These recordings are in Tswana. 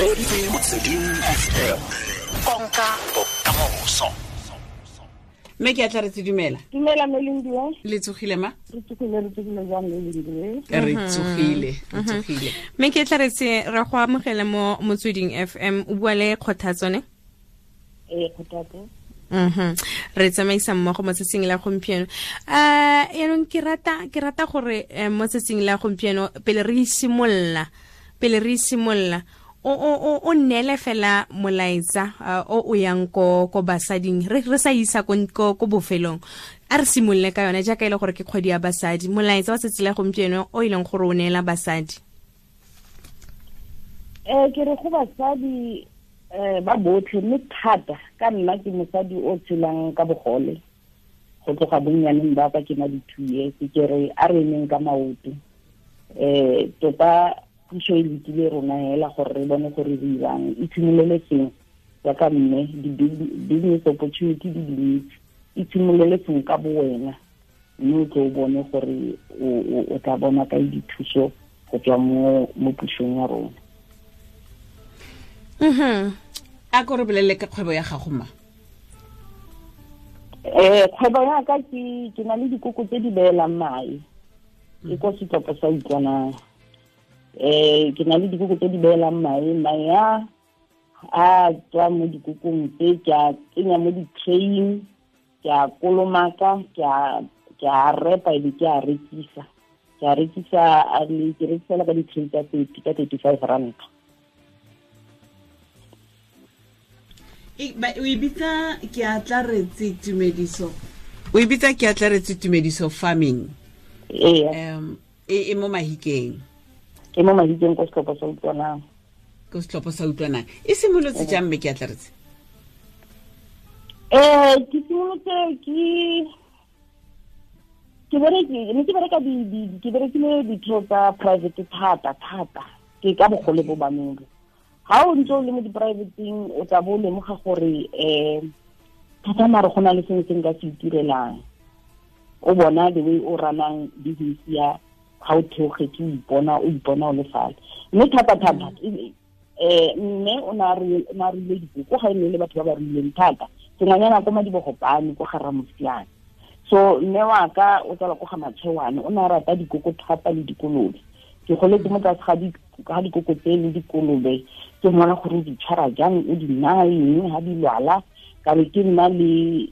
Reditse Motsweding FM. Konka bokamoso. Mme ke a tla re tse dumela. Dumela Melindiwe. Le tsogile ma? Re tsogile, re tsogile jang Melindiwe? Re tsogile, re tsogile. Mme ke tla re tse re go amogele mo Motsweding FM, o bua le Kgothatso ne? Ee, Kgothatso. Re tsamaisa mmogo mo tsatsing la gompieno. Yaanong ke rata gore mo tsatsing la gompieno pele re simolola o neele fela molaetsa o yang ko basading, re sa isa ko bofelong. A re simolole ka yone jaaka e le gore ke kgwedi ya basadi, molaetsa wa tsatsi la gompieno o e leng gore o neela basadi. Ke re go basadi ba botlhe, mme thata ka nna ke mosadi o tshelang ka bogole go tloga bonnyaneng ba ka ke na di 2 years. Ke re a re emeng ka maoto, tota puso e lekile rona hela gore re bone gore re dirang. Itshimolele sengwe jaaka mme, di-business opportunity di dintsi, itshimolele sengwe ka bo wena, mme o tlo o bone gore o tla bona kae dithuso go tswa mo pusong ya rona. A ko re bolelele ka kgwebo ya gago ma? Kgwebo ya ka ke na le dikoko tse di beelang mae, ke ko setlhopha sa Utlwanang. Ke na le dikoko tse di beelang mae, mae a tswa mo dikokong tse, ke a tsenya mo di-traying, ke a kolomaka, ke a repa ebe ke a rekisa. Ke a rekisa, ke rekisela ka di-tray tsa 30, ka 35 rand. O e bitsa ke a tla retse tumediso. O e bitsa ke a tla retse tumediso farming. Ee. E mo Mahikeng. E mo Mahikeng ko setlhopha sa Utlwanang. Ko setlhopha sa Utlwanang. E simolotse jang mme ke a tla retse? Ke simolotse ke bereka ke berekile ditiro tsa private thata thata. Ke ka bogole bo ba mele. Ha o ntse o le mo di-privateng, o tla bo o lemoga gore thata mare go na le sengwe se nka se itirelang. O bona the way o runang business ya ga o theogetse, o ipona o le fale. Mme thata thata mme o ne a ruile dikoko, ga e ne le batho ba ba ruileng thata. Sengwanyana ko Madibogopane ko ga Ramosiane. So mme wa ka o tsala ko ga Matšhewane, o ne a rata dikoko thata le dikolobe. Ke goletse mo tlase ga dikoko tse le dikolobe, ke mmona gore o di tshwara jang, o di naya eng ha di lwala. Ka be ke nna le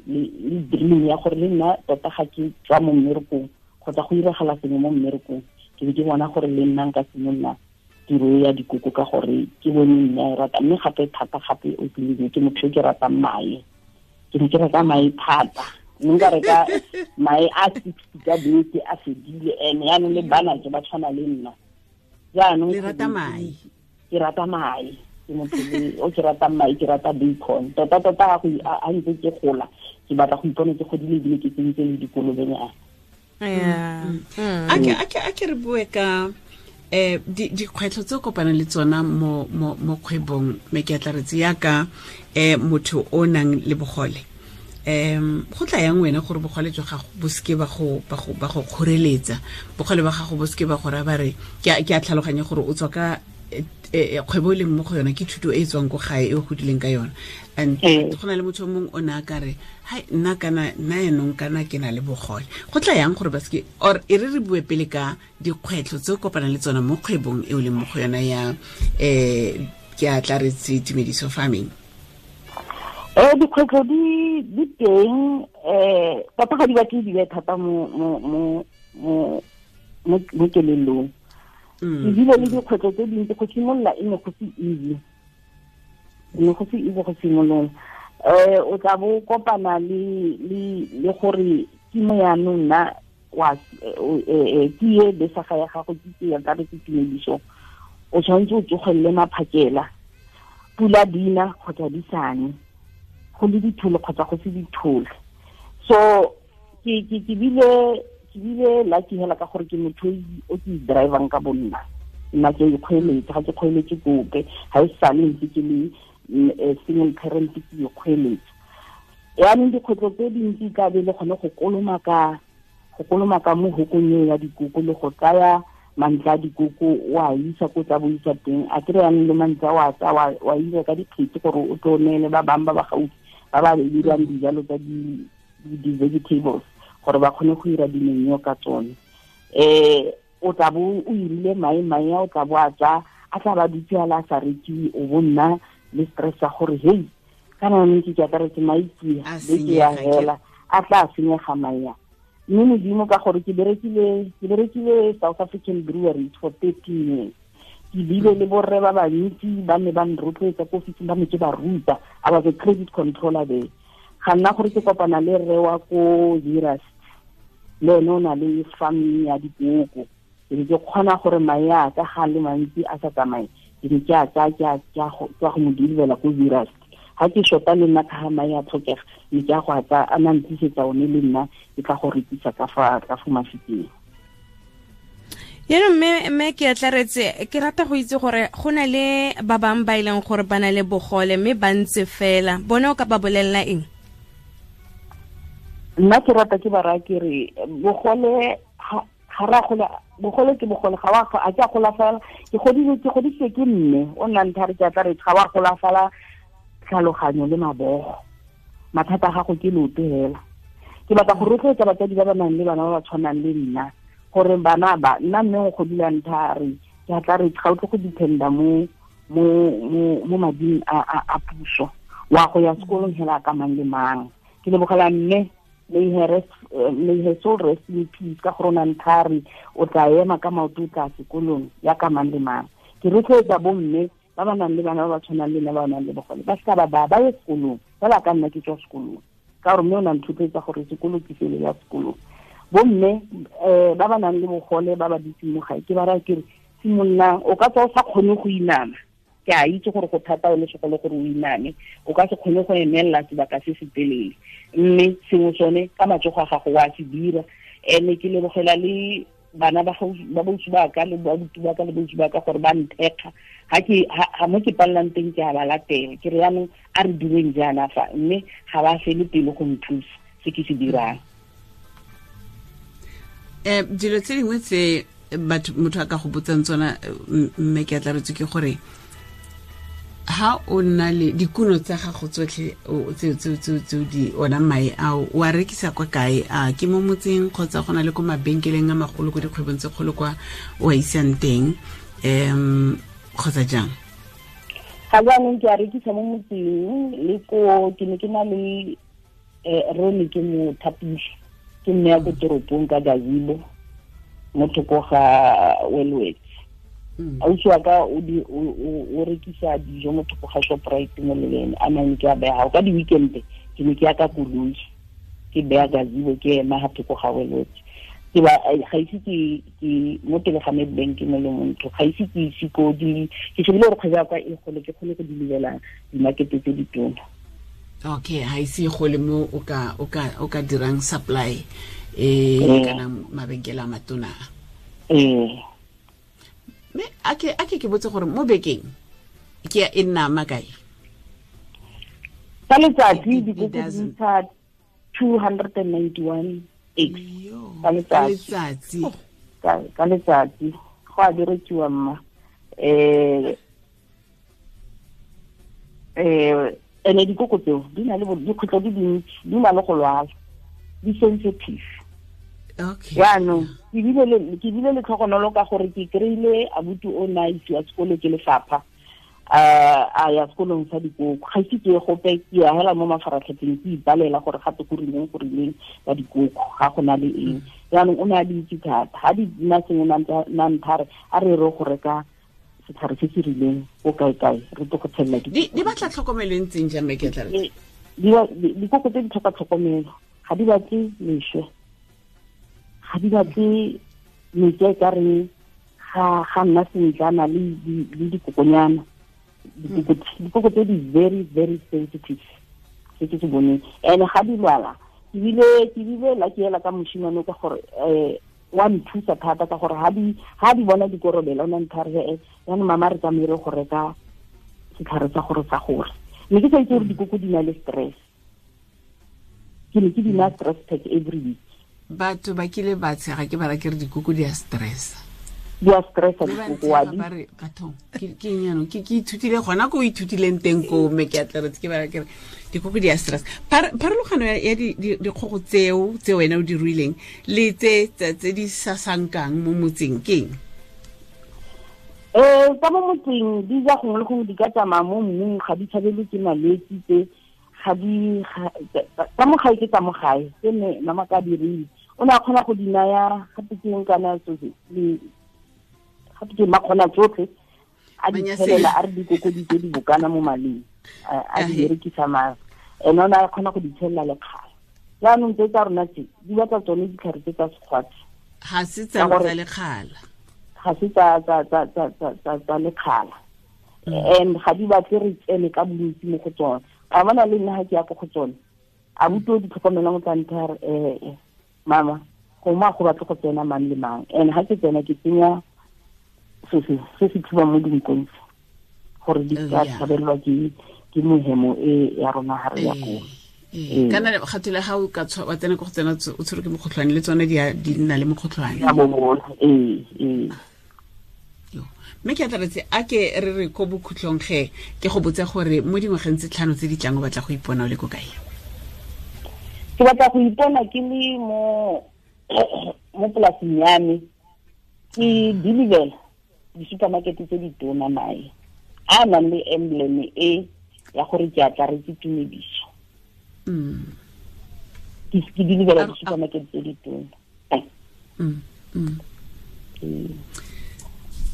dream ya gore le nna tota ga ke tswa mo mmerekong kgotsa go iragala sengwe mo mmerekong, ke be ke bona gore le nna nka simolola tiro ya dikoko ka gore ke bone mme a e rata. Mme gape thata gape o tlile ke motho yo ke ratang mae, ke ne ke reka mae thata, mme nka reka mae a 60 ka beke a fedile. Ene yaanong le bana ke ba tshwana le nna. Jaanong le rata mae. Ke rata mae, ke motho o ke ratang mae, ke rata bacon. Tota tota a ntse ke gola, ke batla go ipona ke godile ebile ke tsentse le dikolobenyana. A ke re bue ka dikgwetlho tse o kopanang le tsona mo kgwebong, mme ke a tla retse yaka motho o nang le bogole. Go tla yang wena gore bogole jwa gago bo seke ba go kgoreletsa, bogole ba gago bo seke ba go raya ba re ke a tlhaloganya gore o tswa ka kgwebo e leng mo go yona ke thuto e e tswang ko gae e o godileng ka yona. And go na le motho o mongwe o ne a ka re hai nna kana nna yanong kana ke na le bogole. Go tla yang gore ba seke, or e re bue pele ka dikgwetlho tse o kopanang le tsona mo kgwebong e o leng mo go yona ya ke a tla retse tumediso farming. Dikgwetlho di teng, tota ga di batle di be thata mo kelellong. Ebile le dikgwetlho tse dintsi go simolola e ne go se easy. E ne go se easy go simolola. O tla bo kopana le gore ke mo yaanong nna wa ke e besaga ya gago, ke ke ya ka re ke tumediso. O tshwanetse o tsogelele maphakela, pula dina kgotsa di sane, go le dithole kgotsa go se dithole. So ke bile lucky hela ka gore ke motho o ke drivang ka bonna. Nna ke ikgweeletse, ga ke kgweeletse kope, ga e sale ntse ke le single parent, ke ikgweeletse. Yaanong dikgwetlho tse dintsi ka be le gone go kolomaka mo hokong eo ya dikoko le go tsaya Mantle a dikoko o a isa ko tsa bo isa teng, a kry yanong le mantle a wa tsa wa ira ka dikgetsi gore o tlo neele ba bangwe ba ba gaufi ba ba dirang dijalo tsa di-vegetables gore ba kgone go ira dimenyo ka tsone. O tla bo o irile mae a o tla bo a tsa a tla ba dutse a la sa rekiwe, o bo nna le stress ya gore hei kana nne ke akaretse mae A beke ya senyega, hela a tla senyega mae a. Mme Modimo ka gore ke berekile South African Breweries for 13 years, ke bile le borre ba bantsi ba ne ba nrotloetsa ko ofising, ba ne ke ba ruta. I was a credit controller there. Ga nna gore ke kopana le rre wa ko Zeerust, le ene o na le farm ya dikoko. Ke ne ke kgona gore mae a ka ga le mantsi a sa tsamaye, ke ne ke a tsaya ke a go mo deliver ko Zeerust. Ha ke shota le nna ka ga mae a tlhokega, ne ke a go a tsaya a na ntlisetsa one le nna ke tla go rekisa ka fa Mafikeng. Yaanong mme ke atlaretse, ke rata go itse gore go na le ba bangwe ba e leng gore ba na le bogole mme ba ntse fela, bone o ka ba bolelela eng? Nna ke rata ke ba raya ke re bogole ga ra gola, bogole ke bogole, ga wa a ke a golafala. Ke godisitswe ke mme o nna ntha re ke atlaretse, ga wa golafala tlhaloganyo le mabogo, mathata a gago ke leoto hela. Ke batla go rotloetsa batsadi ba ba nang le bana ba ba tshwanang le nna gore bana ba nna mme o godile ntha re ke a tla re ga o tle go dependa mo mading a puso, wa go ya sekolong hela ka mang le mang. Ke lebogela mme, may her soul rest in peace, ka gore o na ntha re o tla ema ka maoto o tla sekolong ya ka mang le mang. Ke rotloetsa bo mme ba ba nang le bana ba ba tshwanang le nna ba ba nang le bogole, ba seka ba ye sekolong fela ka nna ke tswa sekolong, ka gore mme o na nthotloetsa gore sekolo ke sele ya sekolong. Bo mme ba ba nang le bogole ba ba dutseng mo gae, ke ba raya ke re simololang, o ka tswa o sa kgone go inama, ke a itse gore go thata o le segolo gore o iname, o ka se kgone go emelela sebaka se se telele, mme sengwe sone ka matsogo a gago wa se dira. Ene ke lebogela le bana ba bausi ba ka le babuti ba ka le bausi ba ka gore ba nthekga ha mo ke pallang teng ke a ba latela, ke re yaanong a re direng jaana fa, mme ga ba fele pelo go nthusa se ke se dirang. Dilo tse dingwe tse motho a ka go botsang tsona mme ke atlaretse ke gore ha o nna le dikuno tsa gago tsotlhe tse di ona mae ao o a rekisa kwa kae? A ke mo motseng kgotsa go na le ko mabenkeleng a magolo ko dikgwebong tse kgolo kwa o a isang teng, kgotsa jang? Ga jaanong ke a rekisa mo motseng le ko ke ne ke na le Rone ke mo thapile, ke mme ya ko toropong ka gazebo mo thoko ga Wellworth. Ausi wa ka o rekisa dijo mo thoko ga Shoprite mo leleng, a nang ke a beya ka di-weekend ke ne ke ya ka koloi ke beya gazebo ke ema ga thoko ga Wellworth. Ke ba ga ise ke mo pele ga Nedbank mo le montho, ga ise ke ise ko di ke shebile gore kgwebo ya ka e gole ke kgone go deliver di-market tse ditona. Okay, ha ise e gole mo o ka dirang supply kana mabenkele a matona. Mme a ke botse gore mo bekeng ke e nna makae? Ka letsatsi dikoko di ntsha 291 eggs ka letsatsi. Ka letsatsi go a berekiwa mma. Ene dikoko tseo di na le dikgwetlho di dintsi, di na le go lwala, di sensitive. Okay. Jaanong ke bile le tlhogonolo ka gore ke kry-ile abuti o na isiwa sekolo ke lefapha, a ya sekolong sa dikoko. Ga ise ke ye gope, ke ya hela mo mafaratlhatlheng ke ipalela gore gape go rileng go rileng ka dikoko, ga go na le eng. Jaanong o ne a di itse thata, ga di nna sengwe na nthare a re re go reka setlhare se se rileng ko kae-kae re tlo go tshelela dikoko. Di batla tlhokomelo e ntseng jang, mme ke tla re? Dikoko tse di tlhoka tlhokomelo, ga di batle leswe, ga di batle metsi a e ka reng ga nna sentle a na le dikokonyana. Dikoko tse di very very sensitive, se ke se boneng. And ga di lwala, ke bile la ke ela ka moshimane ka gore wa nthusa thata ka gore ha di bona dikorobela o na nthare jaanong mama re tsamaye re go reka setlhare sa gore sa gore. Mme ke sa itse gore dikoko di na le stress, ke ne ke di na stress pack every week. Batho ba kile ba tshega ke ba ra ke re dikoko di a stress. Di a stressa dikoko wa di bathong ke eng ke ithutile gona ko o ithutileng teng ko mme ke atleretse ke bara kere dikoko di a stress. Pharologano ya dikgogo tseo tse wena o di ruileng le tse tse di sasankang mo motseng ke eng? Tsa mo motseng di ja gongwe le gongwe, di ka tsamaya mo mmung, ga di tshabelwe ke malwetse tse, ga di tsa mo gae ke tsa mo gae tse ne mama ka di ruile. O ne a kgona go di naya gape ke eng kana tsotlhe, gape ke makgona tsotlhe a di tshelela, a re dikoko di tse di bokana mo maleng, a di berekisa mare ene o ne a kgona go di tshelela lekgala. Jaanong tse tsa rona tse di batla tsone ditlhare tse tsa sekgwatsi, ga se tsa lekgala, ga se tsa lekgala, and ga di batle re tsene ka bontsi mo go tsone. A bona le nna ga ke ya ko go tsone, a buto di tlhokomelang o tla ntha re mama gongwe a go batle go tsena mang le mang, and ga ke tsena ke tsenya se se thubang mo dinkong gore di ka tshabelelwa ke mohemo e ya rona ga re ya koo. Kana gathole ga o ka wa tsena ko go tsena o tshwerwe ke mokgotlhwane, le tsone di nna le mokgotlhwane. Ee. Mme ke atlaretse a ke re re ko bokhutlong ge ke go botse gore mo dingwageng tse 5 tse di tlang o batla go ipona o le ko kae? Ke batla go ipona ke le mo polasing ya me, ke deliver di-supermarket tse di tona mae a nang le emblem e ya gore ke atlaretse tumediso. Ke deliver di-supermarket tse di tona.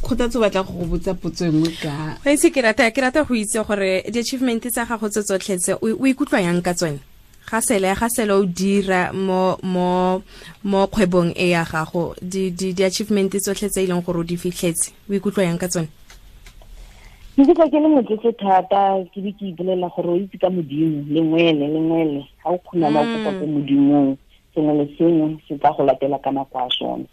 Kgothatso batla go botsa potso engwe ka go itse ke rata go itse gore di-achievement tsa gago tse tsotlhe tse o ikutlwa yang ka tsone? Ga sele o dira mo kgwebong e ya gago, di-achievement tsotlhe tse e leng gore o di fitlhetse, o ikutlwa yang ka tsone? Ke ikutlwa ke le motlotlo thata, ke be ke ipolelela gore o itse ka Modimo, lengwele ga o kgonama o kopa ko Modimong, sengwe le sengwe se tla go latela ka nako ya sone.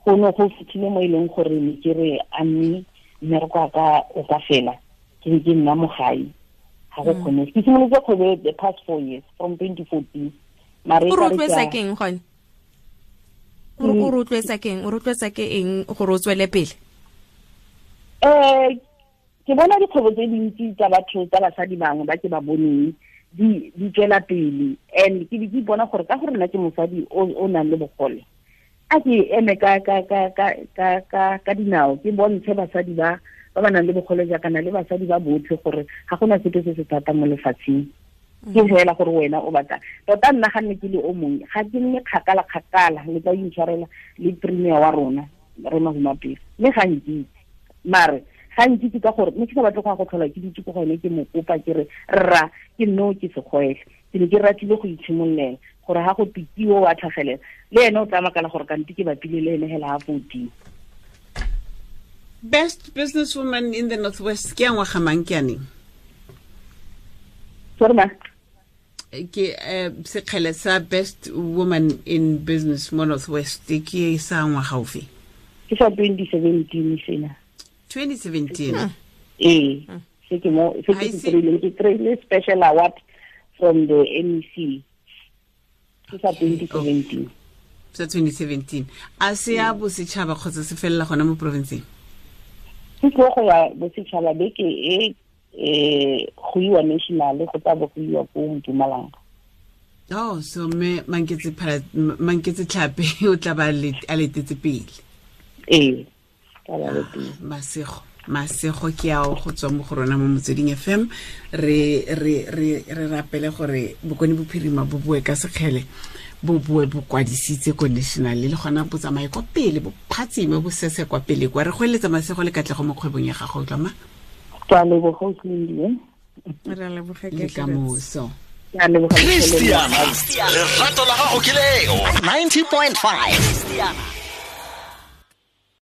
Go ne go fitlhile mo e leng gore ne ke re a mme mmereko wa ka o ka fela, ke be ke nna mo gae, ga go kgone. Ke simolotse kgwebo the past 4 years from 2014. Mare o rotloetsa ke eng gone? O rotloetsa ke eng? O rotloetsa ke eng gore o tswele pele? Ke bona dikgwebo tse dintsi tsa batho tsa basadi bangwe ba ke ba boneng di tswela pele, and ke be ke ipona gore ka gore nna ke mosadi o nang le bogole, a ke eme ka dinao, ke bontshe basadi ba ba nang le bogole jaaka na le basadi ba botlhe gore ga gona sepe se se thata mo lefatsheng. Ke fela gore wena o batla tota. Nna ga nne ke le o mongwe, ga ke nne kgakala le tla intshwarela le premier wa rona re Mahumapelo, mme ga nkitse, mare ga nkitse ka gore mme ke sa batle go ya go tlhola ke ditse ko gone, ke mo kopa ke re rra ke nno ke segwele. Ke ne ke ratile go itshimololela gore ga go pitiwo wa tlhagelela le ene o tla makala gore kante ke bapile le ene hela ga 14. Best businesswoman in the Northwest ke ya ngwaga mang ke aneng? Sorry ma. Ke sekgele sa best woman in business mo Northwest ke sa ngwaga ofe? Ke sa 2017 sena. 2017. Ee, se ke mo se ke se kry-ile special award from the MEC. Ke sa 2017. Sa 2017. A se ya bosetšhaba kgotsa se felela gona mo provinceng? Ke tlo go ya bosetšhaba beke e go iwa national, go tla bo go iwa ko Mpumalanga. Oh, so me Manketse Tlhape o tla ba a letetse pele. Ee. Masego ke ao go tswa mo go rona mo Motsweding FM. Re rapele gore Bokone Bophirima bo boe ka sekgele, bo boe bo kwadisitse ko national, le gona bo tsamaye kwa pele, bo phatsime, bo sese kwa pele kwa. Re go eletsa masego le katlego mo kgwebong ya gago, utlwa ma? Ke a leboga, o tlile. Re a leboga ke kamoso. Christiana, lerato la gago ke leo 90.5.